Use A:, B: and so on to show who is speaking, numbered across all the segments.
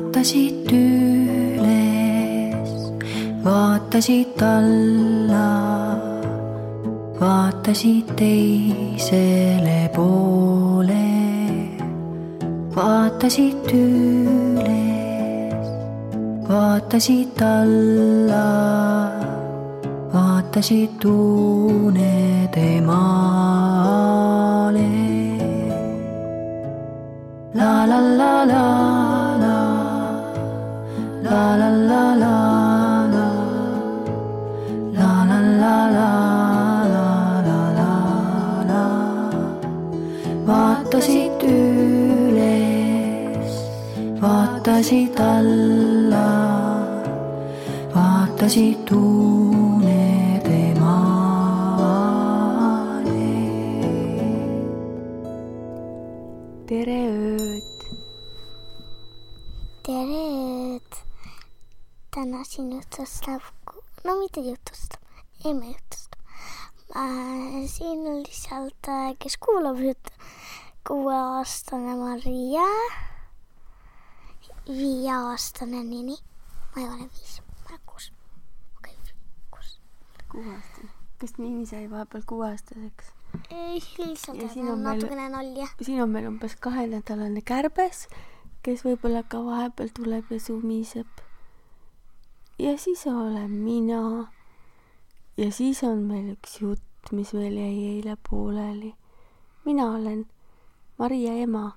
A: vaatasid üles, vaatasid alla, vaatasid teisele poole, vaatasid üles, vaatasid alla, vaatasid unede maale. La la la la la, la la la la la, la la la la la la la la. Vaatasid üles, vaatasid alla, vaatasid unede maale.
B: Tere ööd!
C: Tere ööd! Täna siin jutustab, no mitte jutustab, ei me jutustab. Siin on lihtsalt, kes kuulab juttu, 6-aastane Maria, 5-aastane Nini, ma ei ole 5, ma olen 6. Okei, 6.
B: 6-aastane. Kas Nini sai vahepeal 6-aastaseks?
C: Ei, lihtsalt
B: Ja siin
C: on
B: on meil-
C: natukene nalja.
B: Siin on meil umbes 2-nädalane kärbes, kes võib-olla ka vahepeal tuleb ja sumiseb. Ja siis olen mina. Ja siis on meil üks jutt, mis meil jäi eile pooleli. Mina olen Maria ema,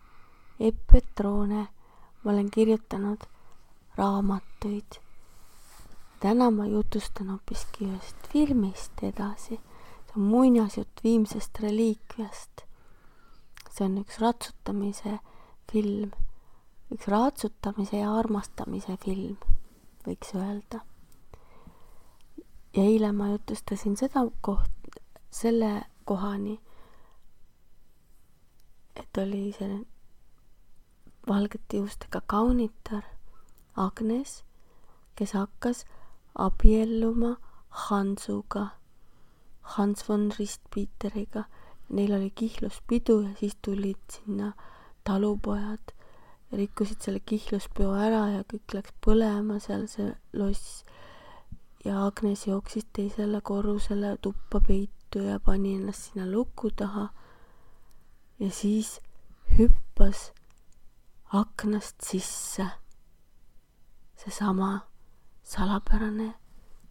B: Epp Petrone. Ma olen kirjutanud raamatuid. Täna ma jutustan hoopiski ühest filmist edasi. See on muinasjutt viimsest reliikviast. See on üks ratsutamise film. Üks ratsutamise ja armastamise film, võiks öelda. Ja eile ma jutustasin selle kohani, et oli see valgete juustega kaunitar Agnes, kes hakkas abielluma Hansuga, Hans von Ristpieteriga. Neil oli kihluspidu ja siis tulid sinna talupojad ja rikkusid selle kihluspeo ära ja kõik läks põlema seal see loss. Ja Agnes jooksis teisele korrusele tuppa peitu ja pani ennast sinna luku taha. Ja siis hüppas aknast sisse seesama salapärane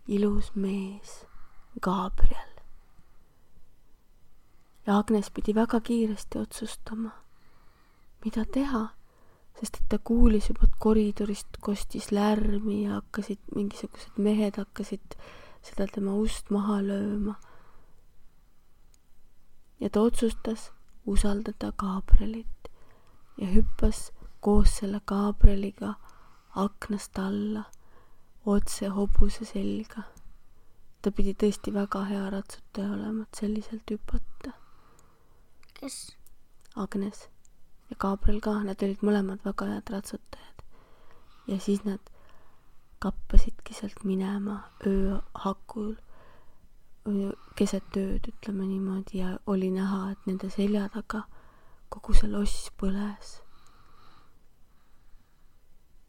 B: ilus mees, Gabriel. Ja Agnes pidi väga kiiresti otsustama, mida teha, sest et ta kuulis juba koridorist kostis lärmi ja mingisugused mehed hakkasid seda tema ust maha lööma. Ja ta otsustas usaldada Gabrielit ja hüppas koos selle Gabrieliga aknast alla, otse hobuse selga. Ta pidi tõesti väga hea ratsutaja olema, et selliselt hüpata.
C: Kes?
B: Agnes ja Gabriel ka, nad olid mõlemad väga head ratsutajad. Ja siis nad kappasidki sealt minema ööhakul, keset ööd, ütleme niimoodi, ja oli näha, et nende selja taga kogu see loss põles.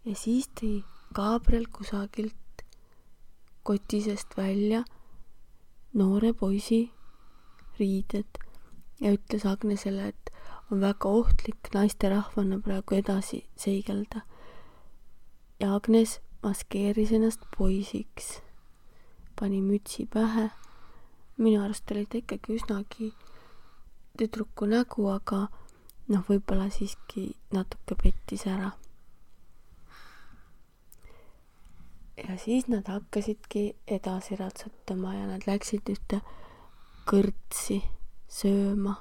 B: Ja siis tõi Gabriel kusagilt kotisest välja noore poisi riided ja ütles Agnesele, et on väga ohtlik naisterahvana praegu edasi seigelda. Ja Agnes maskeeris ennast poisiks, pani mütsi pähe. Minu arust oli ta ikkagi üsnagi tüdruku nägu, aga võib-olla siiski natuke pettis ära. Ja siis nad hakkasidki edasi ratsutama ja nad läksid ühte kõrtsi sööma.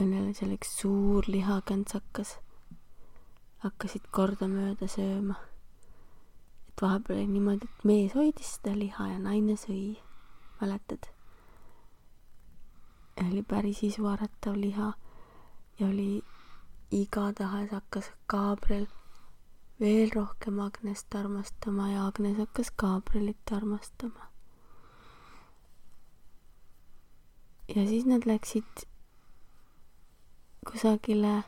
B: Õnnele seal üks suur lihakantsakas. Hakkasid kordamööda sööma. Et vahepeal oli niimoodi, et mees hoidis seda liha ja naine sõi. Mäletad? Ja oli päris isuaratav liha ja oli igatahes hakkas Gabriel veel rohkem Agnest armastama ja Agnes hakkas Gabrielit armastama. Ja siis nad läksid kusagile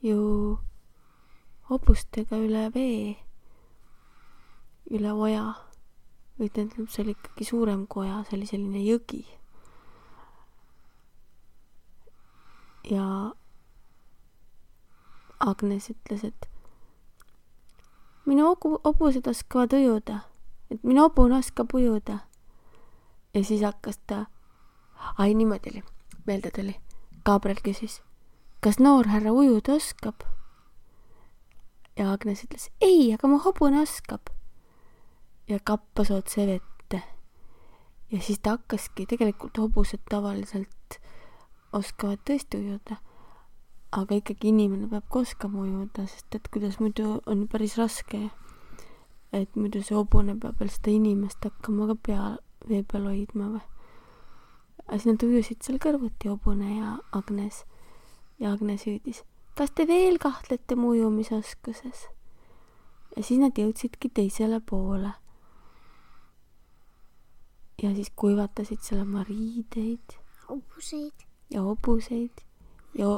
B: ju hobustega üle vee, üle oja. Või tähendab, see oli ikkagi suurem kui oja, see oli selline jõgi. Ja Agnes ütles, et minu hobused oskavad ujuda, et minu hobune oskab ujuda. Ja siis hakkas ta, niimoodi oli, meelde tuli. Gabriel küsis, kas noor härra ujuda oskab? Ja Agnes ütles, ei, aga mu hobune oskab. Ja kappas otse vette. Ja siis ta hakkaski, tegelikult hobused tavaliselt oskavad tõesti ujuda. Aga ikkagi inimene peab ka oskama ujuda, sest et kuidas muidu on päris raske, et muidu see hobune peab veel seda inimest hakkama ka vee peal hoidma või. Aga siis nad ujusid seal kõrvuti, hobune ja Agnes. Ja Agnes hüüdis, kas te veel kahtlete mu ujumisoskuses? Ja siis nad jõudsidki teisele poole. Ja siis kuivatasid seal oma riideid. Ja hobuseid. Ja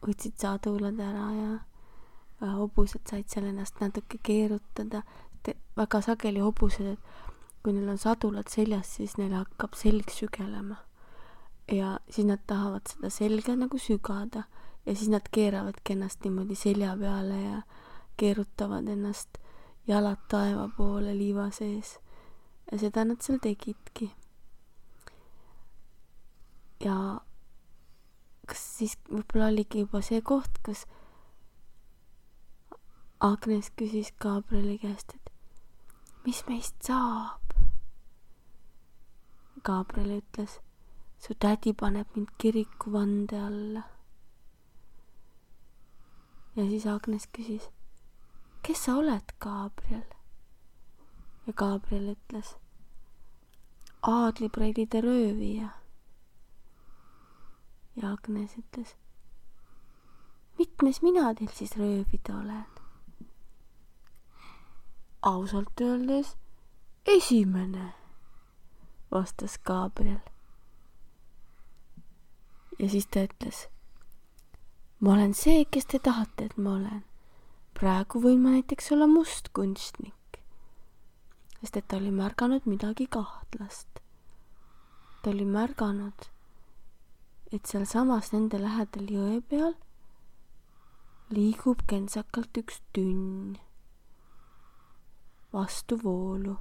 B: võtsid sadulad ära ja hobused said seal ennast natuke keerutada. Väga sageli hobused, et kui neil on sadulad seljas, siis neil hakkab selg sügelema. Ja siis nad tahavad seda selga nagu sügada ja siis nad keeravadki ennast niimoodi selja peale ja keerutavad ennast jalad taeva poole liiva sees. Ja seda nad seal tegidki. Ja kas siis võib-olla oligi juba see koht, kus Agnes küsis Gabrieli käest, et mis meist saab? Gabriel ütles, su tädi paneb mind kiriku vande alla. Ja siis Agnes küsis, kes sa oled, Gabriel? Ja Gabriel ütles, aadlipreilide röövija. Ja Agnes ütles, mitmes mina teil siis röövida olen? Ausalt öeldes esimene, vastas Gabriel. Ja siis ta ütles, ma olen see, kes te tahate, et ma olen. Praegu võin ma näiteks olla must kunstnik. Sest et ta oli märganud midagi kahtlast. Ta oli märganud, et seal samas nende lähedal jõe peal liigub kentsakalt üks tünn vastu voolu.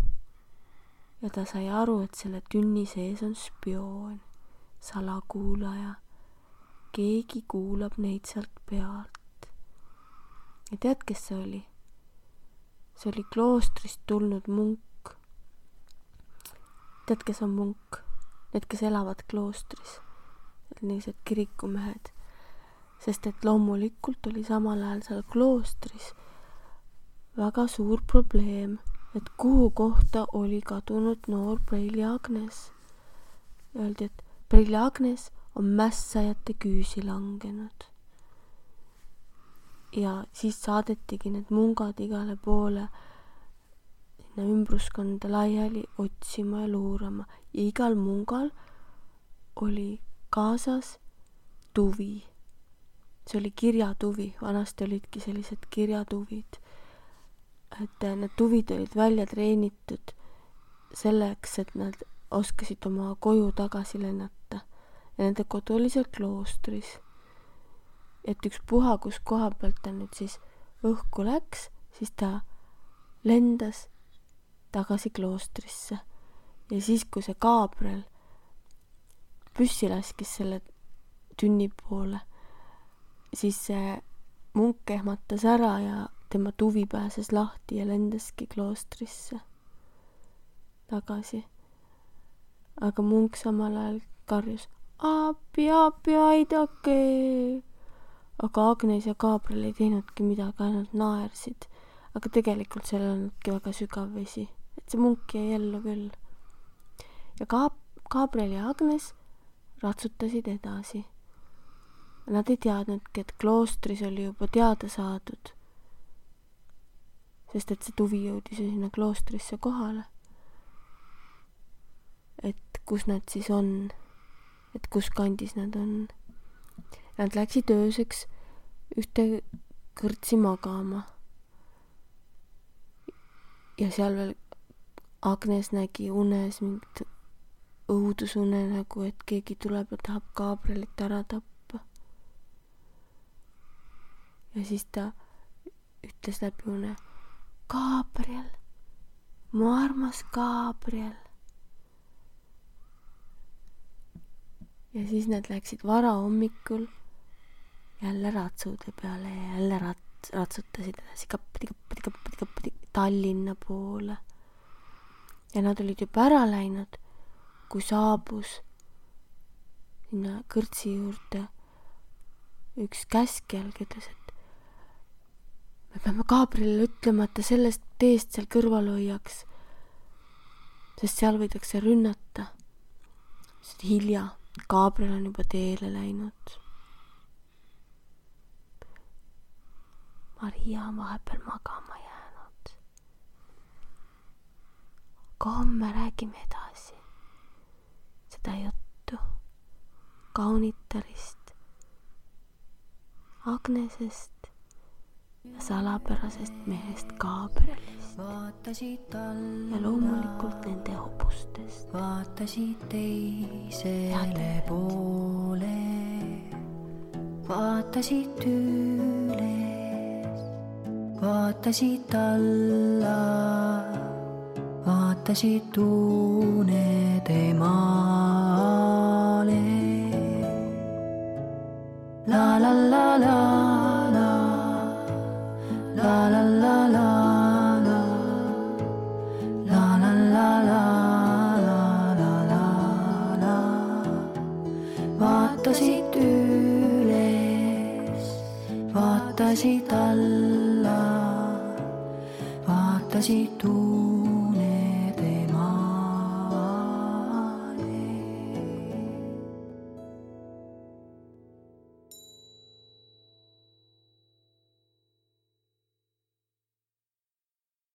B: Ja ta sai aru, et selle tünni sees on spioon, salakuulaja. Keegi kuulab neid sealt pealt. Ja tead, kes see oli? See oli kloostrist tulnud munk. Tead, kes on munk? Need, kes elavad kloostris. Niised kirikumehed. Sest et loomulikult oli samal ajal seal kloostris väga suur probleem, et kuhu kohta oli kadunud noor Preili Agnes. Öeldi, et Preili Agnes on mässajate küüsi langenud. Ja siis saadetigi need mungad igale poole sinna ümbruskonda laiali otsima ja luurama. Ja igal mungal oli kaasas tuvi. See oli kirjatuvi. Vanasti olidki sellised kirjatuvid. Et need tuvid olid välja treenitud selleks, et nad oskasid oma koju tagasi lennata. Ja nende kodu oli seal kloostris. Et üks puha, kus koha pealt ta nüüd siis õhku läks, siis ta lendas tagasi kloostrisse. Ja siis, kui see Gabriel püssi laskis selle tünni poole, siis see munk ehmatas ära ja tema tuvi pääses lahti ja lendaski kloostrisse tagasi. Aga munk samal ajal karjus, appi, aidake! Aga Agnes ja Gabriel ei teinudki midagi, ainult naersid. Aga tegelikult seal olnudki väga sügav vesi. Et see munk jäi ellu küll. Ja Gabriel ja Agnes ratsutasid edasi. Nad ei teadnudki, et kloostris oli juba teada saadud. Sest et see tuvi jõudis sinna kloostrisse kohale. Et kus nad siis on. Et kus kandis nad on. Nad läksid ööseks ühte kõrtsi magama. Ja seal veel Agnes nägi unes mingit õudusune nagu, et keegi tuleb ja tahab Gabrielit ära tappa. Ja siis ta ütles läbi une: Gabriel, mu armas Gabriel. Ja siis nad läksid varahommikul jälle ratsude peale ja jälle ratsutasid edasi kappadi Tallinna poole. Ja nad olid juba ära läinud, kui saabus sinna kõrtsi juurde üks käskjal, ütles, et me peame Gabrielile ütlema, et ta sellest teest seal kõrval hoiaks, sest seal võidakse rünnata. Sest hilja, Gabriel on juba teele läinud. Maria on vahepeal magama jäänud. Aga homme räägime edasi seda juttu kaunitarist, Agnesest ja salapärasest mehest Gabrielist ja loomulikult nende hobustest.
A: Vaatasid teisele poole, vaatasid üles, vaatasid alla, vaatasid unede maale. La la la la la, la la la la la, la la la la la la la. Vaatasid üles, vaatasid alla, vaatasid